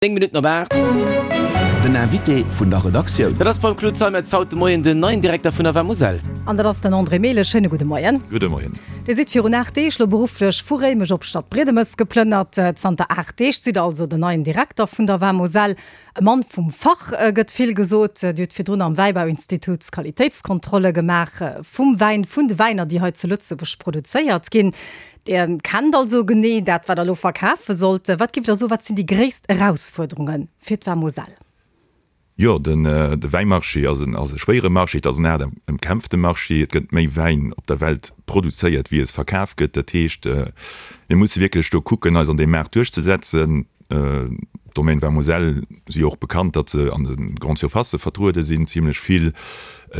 9 Minutten op 8. Den Invité vun der Redaktioun. Dat ass beim Claude Zeimetz haut de Moien den neien Direkter vun der Vamoselle. An dat ass den André Mehlen. Schéine gudde Moien. Gudde Moien. Dir sidd virun 8 Deeg lo berufflech vu Réimech op Stadbriedemes geplënnert. Zanter 8 Deeg sidd Der also den neien Direkter vun der Vamoselle. E Mann vum Fach, gëtt vill gesot. Dir hutt virdrun am Wäibauinstitut Qualitéitskontrolle gemaach vum Wäin, vun de Wäiner, déi hei zu Lëtzebuerg produzéiert ginn. Dir kennt also genee dat, wat Der elo verkafe sollt. Wat géift Der soen, wat sinn déi gréisst Erausfuerderunge fir d'Vamoselle? Jo, de Wäimarché ass e schwéiere Marché, et ass en haart ëmkämpfte Marché. Et gëtt méi Wäin op der Welt produzéiert, wéi es verkaf gëtt. Dat heescht, mir musse wierklech do kucken, eis an deem Maart duerchzesetzen. D'Domaine Vamoselle si jo och bekannt, datt se an de Grande Surfacë vertruede sinn, zimlech vill.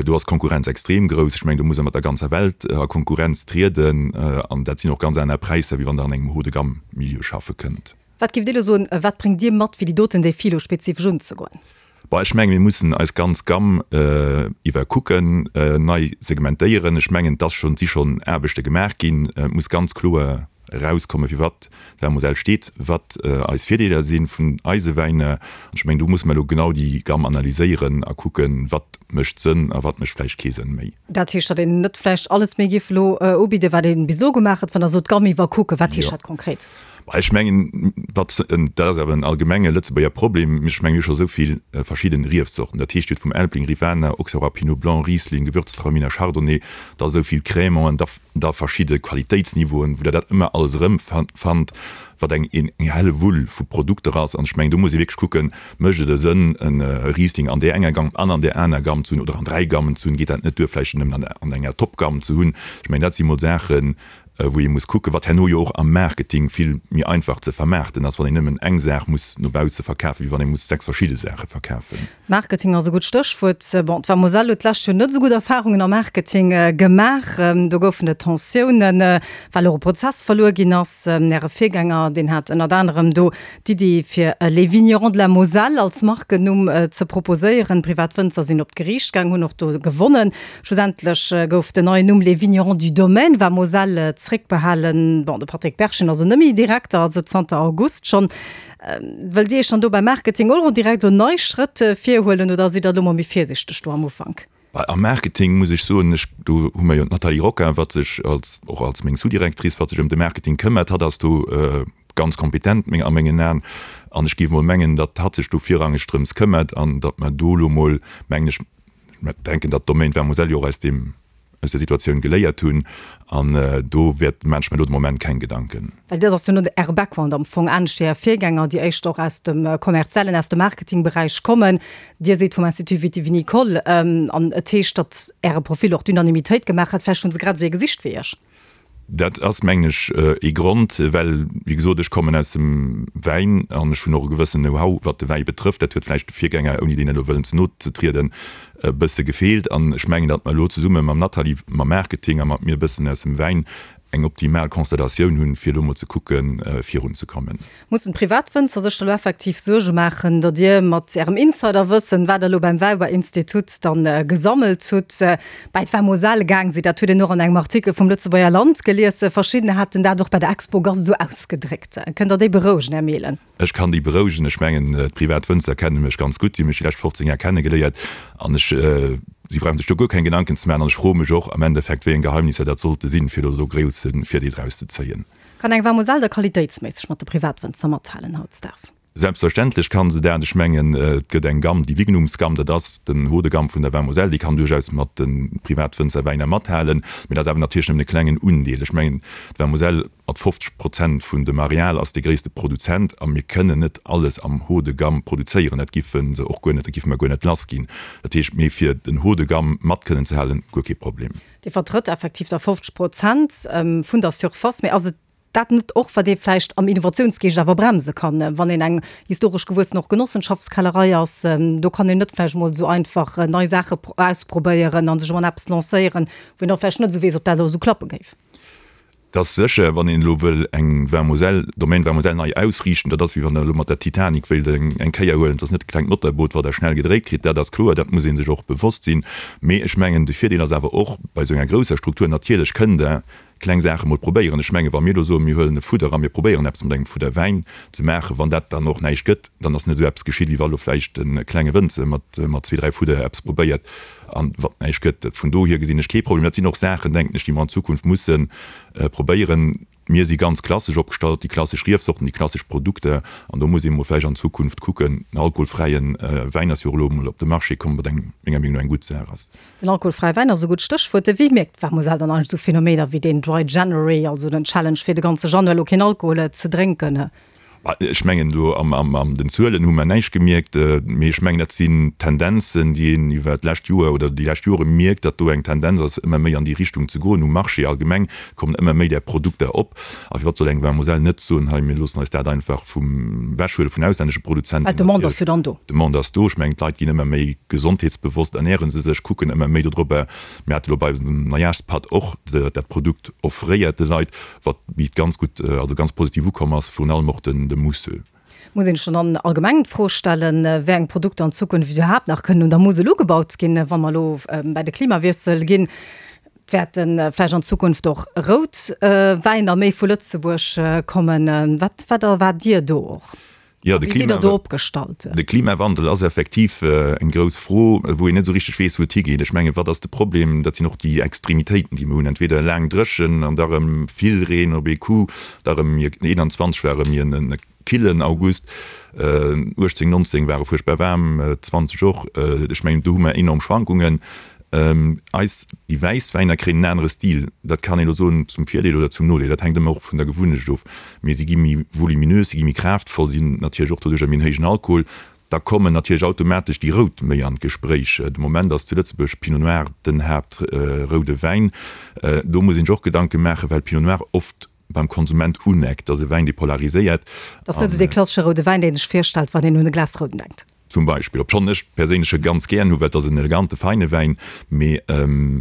Do ass d'Konkurrenz extrem grouss. Ech mengen, do muss e mat der ganzer Welt a Konkurrenz trieden. An dat sinn och ganz aner Präisser, wéi wann Der an engem Haut-de-gamme-Milieu schaffe kënnt. Wat géift Dir elo soen, wat bréngt Dir mat, fir déi doten Défie elo spezifesch unzegoen? Bon, ech mengen, mir mussen eis ganz Gamm iwwerkucken, nei segmentéieren. Ech mengen, et ass schonn, et si schonn Aarbechte gemaach ginn. Et muss ganz kloer erauskommen, fir wat d'Vin-Moselle steet, wat eis Virdeeler si vun eise Wäiner. An ech mengen, do musse mer elo genau déi Gamm analyséieren a kucken, wat mécht Sënn a wat mécht vläicht kee Sënn méi. Dat heescht, datt een net vläicht alles méi géif elo ubidden, wat ee bis elo gemaach huet, wann Der sot, d'Gamm iwwerkucken. Wat heescht dat konkret? Ech mengen, wat, dat ass awer en allgemenge Lëtzebuerger Problem, ech mengen, mir hu scho esou vill verschidden Riefzorten, dat heescht, Dir hutt vum Elbling, Rivaner, Auxerrois, Pinot Blanc, Riesling, Gewürztraminer, Chardonnay, da esou vill Crémanten, da da verschidde Qualitéitsniveauen, wou Der dat ëmmer alles erëmfannt, wat eng eng Hellewull vu Produkter ass. An ech mengen, do muss ee wierklech kucken, Mécht et e Sënn, e Riesling an där enger Gamm an an där aner Gamm ze hunn oder an dräi Gammen ze hunn? Geet dat net duer, vläicht en nëmmen an enger Top-Gamm ze hunn? Ech mengen, dat si mol Saachen, wou ee muss kucken, wat herno jo och am Marketing vill méi einfach ze vermaarten ass, wann een nëmmen eng Saach muss no bausse verkafen, wéi wann ee muss 6 verschidde Saache verkafen. Marketing ass e gutt Stéchwuert. Bon, d'Vamoselle huet d'lescht Joer net esou gutt Erfarungen am Marketing gemaach. Do goufen et Tensiounen, well och e Prozess verluer ginn ass. Äre Virgänger, deen hat ënnert anerem do d'Iddi, fir Les Vignerons de la Moselle als Markennumm ze proposéieren. Privat Wënzer sinn op d'Geriicht gaang, hunn och do gewonnen. Schlussendlech gouf den neien Numm Les Vignerons du Domaine Vamoselle zréckbehalen. Bon, de Patrick Berchen ass elo net méi Direkter, also zanter August schonn. Wëllt Dir Iech dann do beim Marketing och direkt elo nei Schrëtt virhuelen oder sidd Der elo mol méi virsichteg do am Ufank? Am Marketing muss ech soen, ech, do hu mer jo d'Nathalie Rocca, wat sech als, och als meng Sous-Directrice, wat sech ëm de Marketing këmmert. Hatt ass do ganz kompetent meng, a mengen Aen. An ech géif mol mengen, datt hatt sech do virrangeg drëms këmmert an datt mer do elo mol, mengen ech, Ech denken, datt d'Domaine Vermoselle jo och aus deem, aus der Situatioun geléiert hunn an do wäert, maachen ech mir elo de Moment keng Gedanken. Well dat ass jo net Äre Background am Fong, anescht wéi Är Virgänger, déi éischter och aus dem kommerziellen, aus dem Marketingberäich kommen. Dir sidd vum Institut Viti-Vinicole an et heescht, datt Äre Profil och d'Unanimitéit gemaach hat. Vläicht hu se grad esou ee gesicht wéi Iech. Dat ass, mengen ech, ee Grond, well, wéi gesot, ech kommen aus dem Wäin an ech hunn och e gewëssen Know-how, wat de Wäi betrëfft. Dat huet vläicht de Virgänger, ouni deenen elo wëllen ze no ze trieden, e bësse gefeelt. An ech mengen, datt mer elo zesumme mam Nathalie, mam Marketing a mat mir e bëssen aus dem Wäin eng optimal Konstellatioun hunn, fir elo mol ze kucken, virunzekommen. Mussen d'Privatwënzer sech da lo effektiv Suerge maachen, datt Dir mat Ärem Insiderwëssen, wat Der elo beim Wäiberinstitut dann gesammelt hutt, bäi d'Vamoselle gaang sidd? Dat huet een och an engem Artikel vum Lëtzebuerger Land gelies. Verschiddener haten dat och bei der Expogast esou ausgedréckt. Kënnt Der déi berouegen, Här Mehlen? Ech kann déi berouegen. Ech mengen, d'Privatwënzer kenne mech ganz gutt. Si hu mech déi lescht 15 Jar kennegeléiert an ech, si brauche sech do guer keng Gedanken ze maachen. An ech froe mech och am Endeffekt, wéi eng Geheimnisser dat sollte sinn, fir elo do grousse Virdeel draus ze zéien. Kann eng Vamoselle da qualitéitsméisseg mat de Privatwënzer mathalen hautdesdaags? Selbstverständlech kann se dat. Ech mengen, et gëtt eng Gamm, déi Vignumsgamm, dat ass den Haut de gamme vun der Vin Moselle, déi kann duerchaus mat de Privatwënzerwäiner mathalen, mee dat ass awer natierlech nëmmen e klengen Undeel. Ech mengen, d'Vin Moselle mat 50 Prozent vun dem Areal ass de gréisste Produzent a mir kënnen net alles am Haut de gamme produzéieren. Dat giffe se och guer net, dat giffe mer guer net lassginn. Dat heescht, mee fir den Haut de gamme mat kënnen ze halen, guer kee Problem. Dir vertrëtt effektiv da 50 Prozent vun der Surface. Mee ass et dat net och, wat ee vläicht am Innovatiounsgeescht awer bremse kann, wann een eng historesch gewuessen och Genossenschaftskellerei ass? Do kann een net vläicht emol esou einfach nei Saache ausprobéieren a sech emol an eppes lancéieren, wou een och vläicht net esou weess, ob dat elo esou klappe géif. Et ass sécher, wann een elo wëll eng Vin Moselle, Domaine Vin Moselle nei ausriichten, dat ass wéi wann Der elo mat der Titanic wéilt eng Kéier huelen. Et ass net e klengt Motorboot, wat Der schnell gedréit kritt, dat ass kloer, dat muss ee sech och bewosst sinn. Mee ech mengen, de Virdeel ass awer och bei esou enger grousser Struktur, natierlech kënnt Der. Kleng Saache mol probéieren. Ech mengen, wa mir elo soen, mir huelen e Fudder a mir probéieren eppes mat engem Fudder Wäin ze maachen, wann dat dann och näischt gëtt, dann ass net esou eppes geschitt, wéi wa elo vläicht e klenge Wënzer mat mat zwee, dräi Fudder eppes probéiert an wat näischt gëtt. Vun dohier gesinn ech kee Problem. Dat sinn och Saachen, denken ech, déi mer an Zukunft musse probéieren. Mir si ganz klassesch opgestallt, déi klassesch Riefsorten, déi klassesch Produkter, an do muss ee mol vläicht an Zukunft kucken. Den alkoholfräie Wäin ass jo och elo emol op de Marché komm, wat eng, menger Meenung no, eng gutt Saach ass. Den alkoholfräie Wäin ass e gutt Stéchwuert. Wéi mierkt d'Mademoiselle dann eigentlech esou Phänomener wéi deen Dry January, also den Challenge fir de ganze Januar elo keen Alkohol ze drénken? Ech mengen do an den Zuelen hu mer näischt gemierkt, mee ech mengen dat sinn Tendenzen, déi een iwwer d'lescht Joer oder déi lescht Jore mierkt, datt do eng Tendenz ass ëmmer méi an déi Richtung ze goen. Um Marché allgemeng kommen ëmmer méi där Produkter op. A firwat soll eng Vin-Moselle net soen, hei mir loossen eis dat einfach vum ewechhuele vun auslännesche Produzenten. Well d'Demande ass jo dann do. D'Demande ass do. Ech mengen d'Leit ginn ëmmer méi gesondheetsbewosst, ernäre se sech, kucken ëmmer méi dodrobber. Mir hate lo bei eisem Neijahrspad och dat Produkt offréiert de Leit. Wat wéi et ganz gutt, also ganz positiv ukomm ass, virun allem och den de Mousseux. Muss een sech dann allgemeng d'Fro stellen, wéi eng Produkter an Zukunft iwwerhaapt nach kënnen un der Musel ugebaut ginn, wa mer elo bäi de Klimawiessel ginn. Wäerte vläicht an Zukunft och rout Wäiner méi vu Lëtzebuerg kommen? Wat wat erwaart Dir do och? Jo, de Wéi sidd Der do opgestallt? De Klimawandel ass effektiv eng grouss Fro, wou een net esou richteg weess, wou et higeet. Ech mengen, wat ass de Problem? Dat sinn och déi Extremitéiten, déi mer hunn, entweder laang dréchen an da erëm vill Reen op ee Coup, da erëm 21 war erëm en killen August, 18, 19 ware fuerchtbar waarm, 20 och. Ech mengen, do hu mer enorm Schwankungen. Eis, déi wäiss Wäiner kréien en anere Stil. Dat kann een elo soen, zum Virdeel oder zum Nodeel, dat hänkt ëmmer och vun der Gewunnecht of. Mee si gi méi voluminös, si gi méi kraaftvoll, si hunn natierlech och doduercher méi en héijen Alkohol. Da kommen natierlech automatesch déi Rout méi an d'Gespréich. De Moment ass zu Lëtzebuerg Pinot Noir den Haaptroude Wäin. Do muss een sech och Gedanke maachen, well Pinot Noir oft beim Konsument uneckt. Dat ass e Wäin, dee polariséiert. Dat ass net esou dee klassesche roude Wäin, deen ee sech virstellt, wann een un e Glas Rouden denkt. Zum Beispill, obschonn ech perséinlech e ganz gären hu, well et ass en elegante, feine Wäin, mee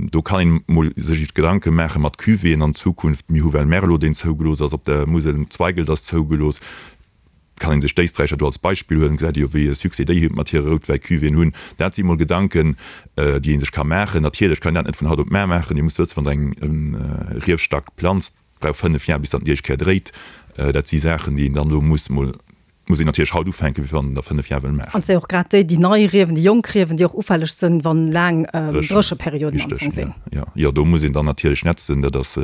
do kann een mol sech iwwer Gedanke maache mat Cuvéeën an Zukunft. Mir hu well Merlot, deen zougelooss ass op der Musel, Zweigelt ass zougelooss, kann een sech d'Éisträicher do als Beispill huelen, gesäit ee jo wéi e Succès déi mat hire Routwäi-Cuvéeën hunn. Dat si mol Gedanken, déi ee sech ka maachen. Natierlech kann een dat net vun haut op mar maachen. Dir musst wëssen, wann Der eng Riefstack planzt, brauch 5 Jar bis datt en déi éischt Kéier dréit. Dat si Saachen, déi een dann elo muss mol, muss een natierlech haut ufänken, wéi wann een der 5 Jar wëll maachen. An et si och grad déi, déi nei Riewen, déi jonk Riewen, déi och ufälleg sinn, wann laang Drécheperioden am Fong sinn. Jo, jo, do muss een dann natierlech netzen. Dat ass,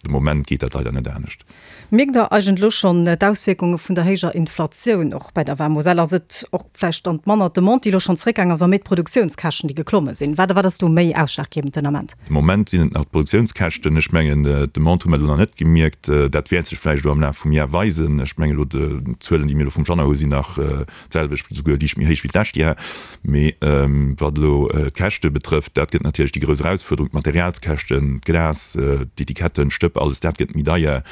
de Moment geet dat leider net anescht. Mierkt Der eigentlech elo schonn d'Auswierkunge vun der héijer Inflatioun och bei der Vin-Moselle? Ass et och vläicht dann manner d'Demande, déi elo schonn zeréckgaang ass, a méi d'Produktiounskäschten, déi geklomme sinn? Wat wat ass do méi ausschlaggebend den Ament? De Moment sinn et nach d'Produktiounskäschten. Ech mengen, d'Demande hu mer elo nach net gemierkt. Dat wäert sech vläicht elo am Laf vum Jar weisen. Ech mengen elo, d'Zuelen, déi mir elo vum Januar hu sinn nach d'selwecht, esouguer liicht méi héich wéi d'lescht Jar. Mee wat elo d'Käschte betrëfft, dat gëtt natierlech déi grouss Erausfuerderung, d'Materialskäschten, d'Glas, d'Etiketten, d'Stëpp, alles dat gëtt méi deier.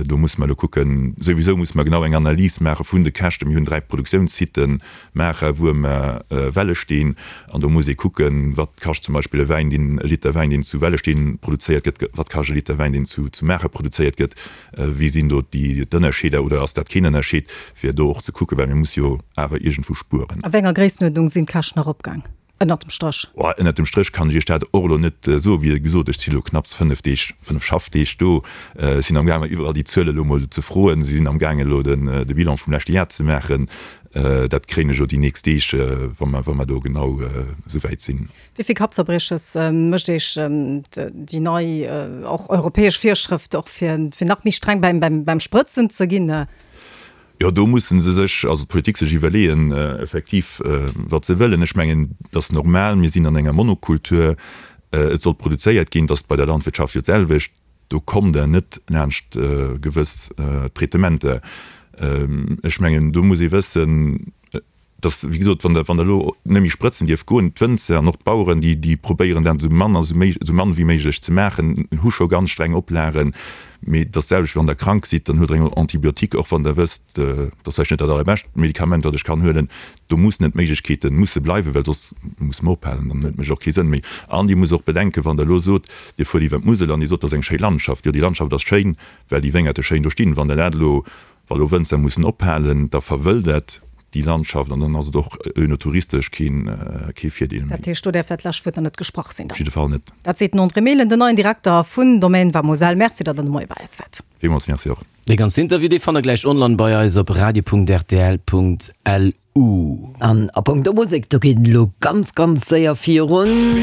Do musse mer elo kucken, souwisou musse mer genau eng Analys maache vun de Käschten. Mir hunn 3 Produktiounssiten, Maacher, Wuermer, Wellesteen. An do muss ee kucken, wat kascht zum Beispill e Wäin, deen, e Liter Wäin, deen zu Wellesteen produzéiert gëtt, wat kascht e Liter Wäin, deen zu Maacher produzéiert gëtt, wéi sinn do déi d'Ënnerscheeder oder ass dat keen Ënnerscheed, fir do och ze kucken, well mir musse jo awer iergendwou spueren. A wéi enger Gréissenuerdnung sinn d'Käschten eropgaang? Ënnert dem Stréch? Oh, ënnert dem Stréch kann ech Iech dat och elo net soen. Wéi gesot, ech si elo knapps 5 Deeg, 5 Schaffdeeg do. Ech sinn amgaangen, iwwerall déi Zuele elo mol ze froen. Si sinn amgaangen, elo de Bilan vum leschte Jar ze maachen. Dat kréien ech elo déi nächst Deeg, wa mer, wa mer do genau esou wäit sinn. Wéi vill Kappzerbrieches mécht Iech déi nei, och europäesch Virschrëft, och fir nach méi streng beim Sprëtzen ze ginn? Jo, do musse se sech, also d'Politik sech iwwerleeën, effektiv, wat se wëllen. Ech mengen, et ass normal, mir sinn an enger Monokultur, et soll produzéiert ginn, et ass bei der Landwirtschaft jo d'selwecht, do kommt Der net laanscht gewëss Traitementer. Ech mengen, do muss ee wëssen, dass, wéi gesot, wann Der, wann Der elo net méi sprëtzen dierft goen, d'Wënzer an och d'Baueren, déi, déi probéieren dat esou mann a esou mann wéi méiglech ze maachen, hu scho ganz streng Oplagen. Mee et ass d'selwecht, wann Der krank sidd, dann huelt Der eng Antibiotique, och wann Der wësst, dat ass vläicht net dat allerbescht Medikament, wat ech kann huelen. Do mussen et d'Méiglechkeete musse bleiwen, well soss musse mer ophalen, dann huet mécht och kee Sënn méi. An Dir musst och bedenken, wann Der elo sot, Dir fuert iwwer d'Musel an Dir sot, dat ass eng schéi Landschaft. Jo, déi Landschaft ass schéin, well déi Wéngerte schéin do stinn. Wann Der dat elo, wa elo Wënzer mussen ophalen, da verwëldert. Déi Landschaft an dann ass et och önotouristesch keen kee Virdeel méi. Dat heescht, do däerf dat lescht Wuert nach net gesprach sinn dann? Op jidde Fall net. Dat seet den André Mehlen, den neien Direkter vun Domaine Vamoselle. Merci, datt Der de Moie bei eis waart. Villmools Merci och. Dee ganzen Interview, dee fannt der gläich online bei eis op radio.rtl.lu. An a Punkto Musek, do geet et elo ganz, ganz séier virun.